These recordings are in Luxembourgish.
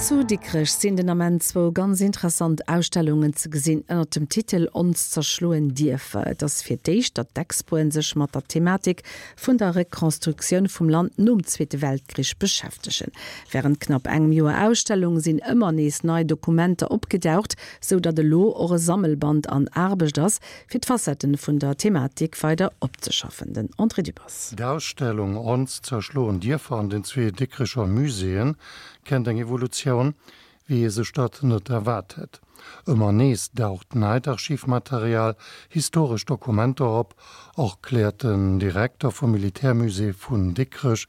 Zu Dikrech sinn den Ament zwou ganz interessant Ausstellungen ze gesinn ënnert dem Titel Ons zerschloen Dierfer. Et ass fir d'éischt, datt d'Expoen sech mat der Thematik vun der Rekonstruktioun vum Land nom Zweete Weltkrich beschäftegen. Wärend knapp engem Joer Ausstellung sinn ëmmer nees nei Dokumenter opgedaucht, sou datt elo och e Sammelband an Aarbecht ass, fir d'Facetten vun der Thematik weider opzeschaffen. Den André Dübbers. D'Ausstellung Ons zerschloen Dierfer an den zwee Dikrecher Muséeën kennt eng Evolutioun, wéi ee sech dat net erwaart hätt. Ëmmer nees daucht neit Archivmaterial, historesch Dokumenter op, erkläert den Direkter vum Militärmusée vun Dikrech,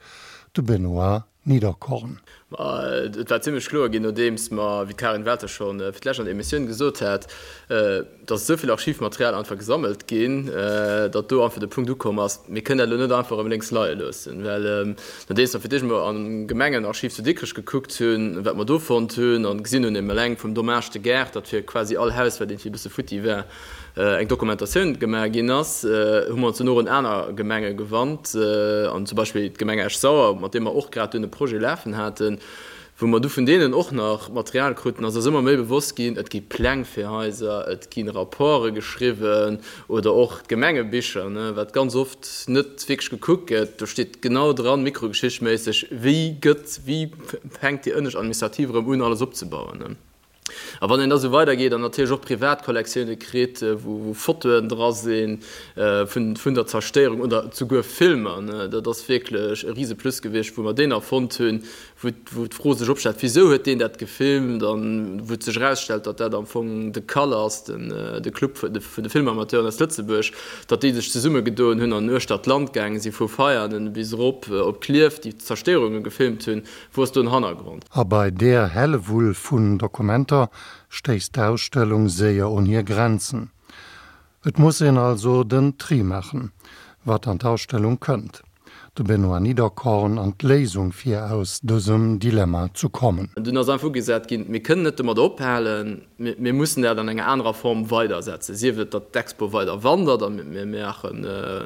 de Benoît Niederkorn. Ma et war zimlech kloer ginn, nodeems mer, wéi d'Karin Welter scho fir d'lescht an der Emissioun gesot hat, datt esou vill Archivmaterial einfach gesammelt ginn, datt do einfach de Punkt ukomm ass, mir kënnen dat elo net einfach erëm lénks leie loossen. Well nodeems mer fir d'éischt emol am Gemengenarchiv zu Dikrech gekuckt hunn, wat mer do fonnt hunn an gesinn hunn, eben eleng vum Dommage de guerre, datt fir quasi all Haus, wat iergendwéi e bësse futti war, eng Dokumentatioun gemaach ginn ass, hu mer ons dunn och un aner Gemenge gewannt, an zum Beispill d'Gemeng Esch-Sauer, mat deem mer och grad dunn e Projet lafen haten, wou mer du vun deenen och nach Material kruten, ass eis ëmmer méi bewosst ginn, et gi Pläng fir Haiser, et gi Rapporte geschriwwen oder och d'Gemengebicher, wat ganz oft net wierklech gekuckt gëtt, do steet genau dran, mikrogeschichtméisseg, wéi gëtt, wéi fänkt déi ënnescht Administrativ erëm un, alles opzebauen. A wann een da sou weidergeet an natierlech och privat Kollektioune kritt, wou Fotoen dra si vun der Zerstéierung oder souguer Filmer, dat ass wierklech e rise Plus gewiescht, wou mer deen erfonnt hunn, wou d'Fro sech opstellt, Wisou huet deen dat gefilmt? An wou et sech erausstellt, datt dat am Fong de CAL ass, de Club vun de Filmamateuren aus Lëtzebuerg, datt déi sech zesummegedoen hunn an uechter d'Land gaange si vu Veianen bis erop op Klierf, déi Zerstéierunge gefilmt hunn. Wou ass do den Hannergrond? A bei där Hellewull vun Dokumenter stéisst d'Ausstellung séier un hir Grenzen. Et muss een also den Tri maachen, wat an d'Ausstellung kënnt. De Benoît Niederkorn an d'Léisung fir aus dësem Dilemma zu kommen. Dunn ass einfach ugesat ginn, mir kënnen net domat ophalen, Mir mussen dat an enger anerer Form weidersetzen, sief et, datt d'Expo weider wandert a mir maache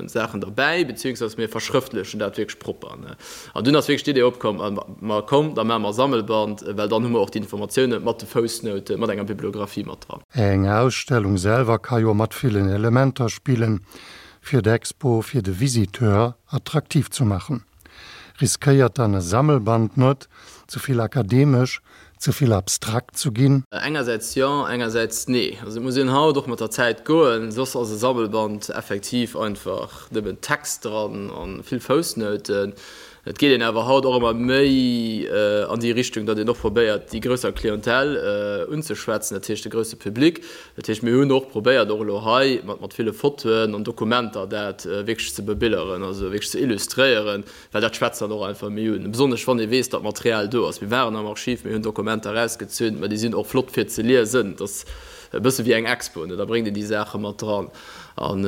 Saachen derbäi, beziehungsweise mir verschrëftlechen dat wierklech propper. An dunn ass wierklech d'Idee opkomm, ma komm, da maache mer e Sammelband, well dann hu mer och déi Informatioune mat de Foussnoute, mat enger Bibliographie mat dran. Eng Ausstellung selwer ka jo mat villen Elementer spillen, fir d'Expo fir de Visiteur attraktiv zu maachen. Riskéiert dann e Sammelband net, ze vill akademesch, ze vill abstrakt zu ginn? Engersäits jo, engersäits nee. Also et muss een haut och mat der Zäit goen, soss ass e Sammelband effektiv einfach nëmmen Text dran a vill Foussnouten. Et geet een awer haut och ëmmer méi an déi Richtung, datt een och probéiert, déi grousser Clientèle unzeschwätzen, dat heescht de grousse Public. Dat heescht, mir hunn och probéiert, och elo hei mat ville Fotoen an Dokumenter dat wierklech ze bebilderen, also wierklech ze illustréieren, well dat schwätzt dann och einfach méi un, besonnesch wann ee weess, datt Material do ass. Mir waren am Archiv, mir hunn Dokumenter erausgezunn, mä déi sinn och flott fir ze liesen. Et ass e bësse wéi eng Expo, ne, da bréngt een déi Saache mat dran. An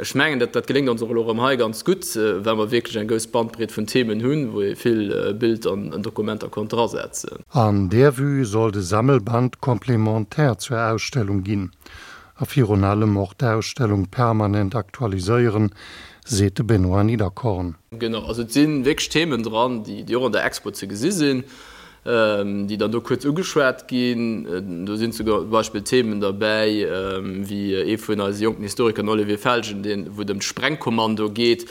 ech mengen, dat dat geléngt ons och elo erëm hei ganz gutt, well mer wierklech eng grouss Bandbreet vun Themen hunn, wou ee vill Bild an Dokumenter konnt drasetzen. An där Vue soll de Sammelband complémentaire zur Ausstellung ginn a virun allem och d'Ausstellung permanent aktualiséieren, seet de Benoît Niederkorn. Genau, also et si wierklech Themen dran, déi och an der Expo ze gesi sinn. déi dann do kuerz ugeschwat ginn. Do sinn zum Beispill Themen derbäi wéi ee vun eise jonken Historiker, den Olivier Felgen, deen, wou et ëm d'Sprengkommando geet.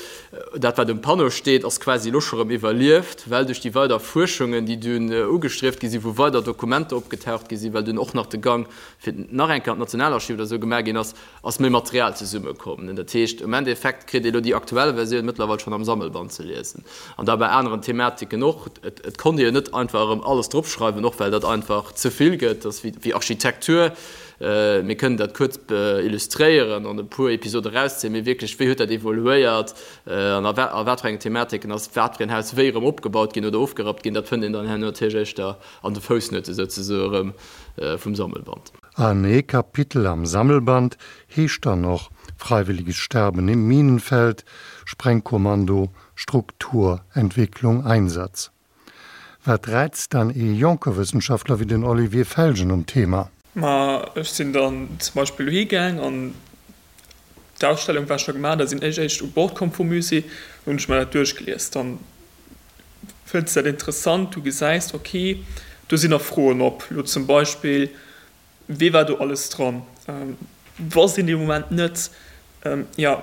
Dat, wat um Panneau steet, ass quasi elo scho rëm iwwerlieft, well duerch déi weider Fuerschungen, déi dunn ugestrieft gi sinn, wou weider Dokumenter opgetaucht gi sinn, well dunn och nach de Gang fir nach eng Kéier an d'Nationalarchiv oder esou gemaach ginn ass, ass méi Material zesummekomm. Dat heescht, um Endeffekt kritt ee lo déi aktuell Versioun mëttlerweil schonn am Sammelband ze liesen. An da bei aneren Thematiken och. Et konnt ee jo net einfach erëm alles dropschreiwen, och well dat einfach ze vill gëtt. Dat ass wéi Architektur. Mir kënnen dat kuerz illustréieren an e puer Episode erauszéien, mee wierklech, wéi huet dat evoluéiert an a wat fir engen Thematiken ass wat fir en Haus wéi erëm opgebaut ginn oder ofgerappt ginn, dat fënnt een dann herno natierlech éischter an de Foussnoute souzesoe erëm vum Sammelband. An ee Kapitel am Sammelband heescht dann och Freiwilliges Sterben im Minenfeld, Sprengkommando, Struktur, Entwicklung, Einsatz. Wat räizt dann ee jonke Wëssenschaftler wéi den Olivier Felgen um Thema? Ma ech sinn dann zum Beispill dohi gaang an d'Ausstellung war scho gemaach, da sinn ech éischt u Bord komm vum Musée, hunn ech mer dat duerchgelies. Dann fënns dat interessant, du gesäis, ok. Do sinn nach Froen op, elo zum Beispill, Wee war do alles dran? Wosst een dee Moment net. Jo,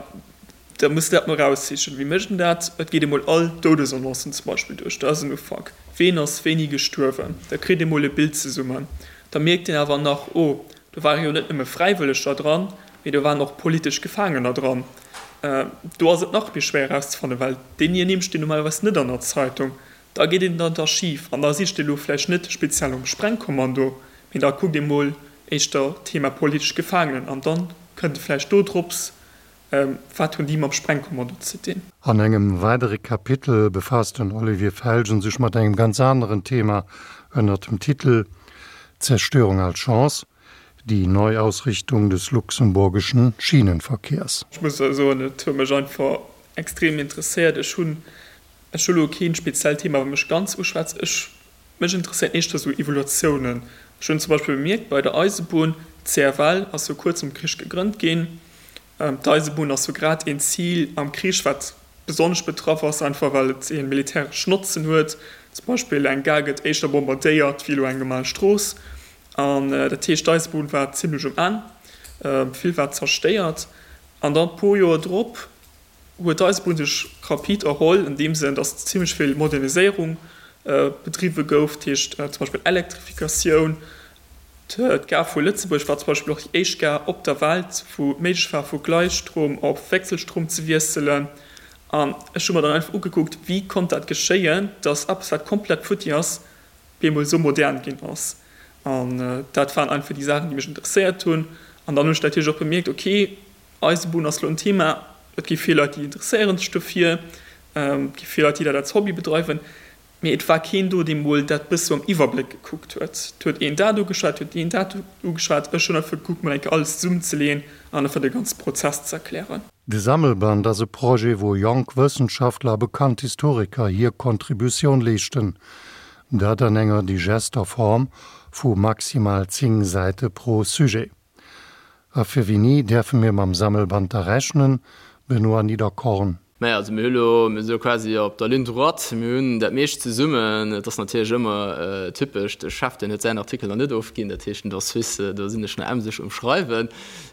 da muss de dat mol eraussichen. Wéi mécht een dat? Et geet ee mol all d'Doudesannoncen zum Beispill duerch. Dat ass en Ufank. Ween ass wéini gestuerwen? Da kritt ee mol e Bild zesummen. Da mierkt een awer nach, Oh, do ware jo net nëmme Fräiwëlleger dran, mee do waren och politesch Gefaangener dran. Do ass et nach méi schwéier erauszefannen, well déi Nimm stinn normalerweis net an der Zeitung. Da geet een an d'Archiv an da sicht ee lo vläicht net speziell nom Sprengkommando, mee da kuckt ee mol éischter Thema politesch Gefaangenen an dann kënnt e vläicht do drops, wat hunn déi mam Sprengkommando ze dinn. An engem weidere Kapitel befaasst den Olivier Felgen sech mat engem ganz aneren Thema ënnert dem Titel Zerstörung als Chance, die Neuausrichtung des luxemburgischen Schienenverkehrs. Ech muss soen, et huet mech einfach extrem interesséiert. Ech hunn Ech hu lo keen speziellt Thema wat mech ganz uschwätzt. Ech, mech interesséiert éischter sou Evaluatiounen. Ech hunn zum Beispill bemierkt bei der Eisebunn, d'CFL ass jo kuerz nom Krich gegrënnt ginn. D'Eisebunn ass jo grad een Zil am Krich wat besonnesch betraff ass, einfach well et een militäreschen Notzen huet. Zum Beispill eng Gare gëtt éischter bombardéiert wéi elo eng normal Strooss. An dat heescht d'Eisebunn war zimlech um Enn, vill war zerstéiert. An dann puer Joer drop huet d'Eisebunn sech rapid erholl, an deem Sënn, datt zimlech vill Moderniséierung bedriwwe gouf, dat heescht zum Beispill Elektrifikatioun. D'Gare vu Lëtzebuerg war zum Beispill och déi éischt Gare op der Welt, wou et méiglech war, vu Gleisstrom op Wechselstrom ze wiesselen. An ech hu mer dann einfach ugekuckt, wéi konnt dat geschéien, datt eppes, wat komplett futti ass, bemol esou modern ginn ass. An dat waren einfach déi Saachen, déi mech interesséiert hunn. An dann hunn ech natierlech och bemierkt, okay, Eisebunn ass lo en Thema, et gi vill Leit déi interesséieren sech dofir, et gi vill Leit déi dat als Hobby bedreiwen, mee et war keen do dee mol dat bësse am Iwwerbléck gekuckt huet. Et huet een dat ugeschwat, et huet een dat ugeschwat, ech hunn einfach gekuckt mol eng Kéier alles zesummenzeleeën an einfach de ganze Prozess ze erklären. De Sammelband ass e Projet, wou jonk Wëssenschaftler a bekannt Historiker hir Kontributioun leeschten, dat an enger digester Form vu maximal 10 Säite pro Sujet. A fir wéini däerfe mir mam Sammelband da rechnen, Benoît Niederkorn? Naja, also mir hu lo, mir si lo quasi op der Ligne droite, mir hunn dat meescht zesummen. Et ass natierlech ëmmer typesch, de Chef, deen huet säin Artikel nach net ofginn, dat heescht den Dor Suisse, do sinn ech nach emseg um Schreiwen.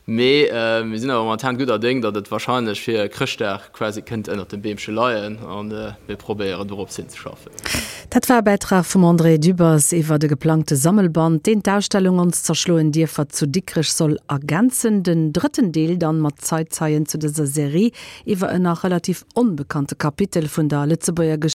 Mee mir sinn awer momentan gudder Déng, datt et wahrscheinlech fir Chrëschtdag quasi kënnt ënnert dem Beemche leien a mir probéieren dorops hinzeschaffen. Dat war e Bäitrag vum André Dübbers iwwer de geplangte Sammelband, deen d'Ausstellung Ons zerschloen Dierfer zu Dikrech soll ergänzen. Den drëtten Deel dann mat Zeitzeien zu dëser Serie iwwer en nach relativ onbekannte Kapitel vun der Lëtzebuerger.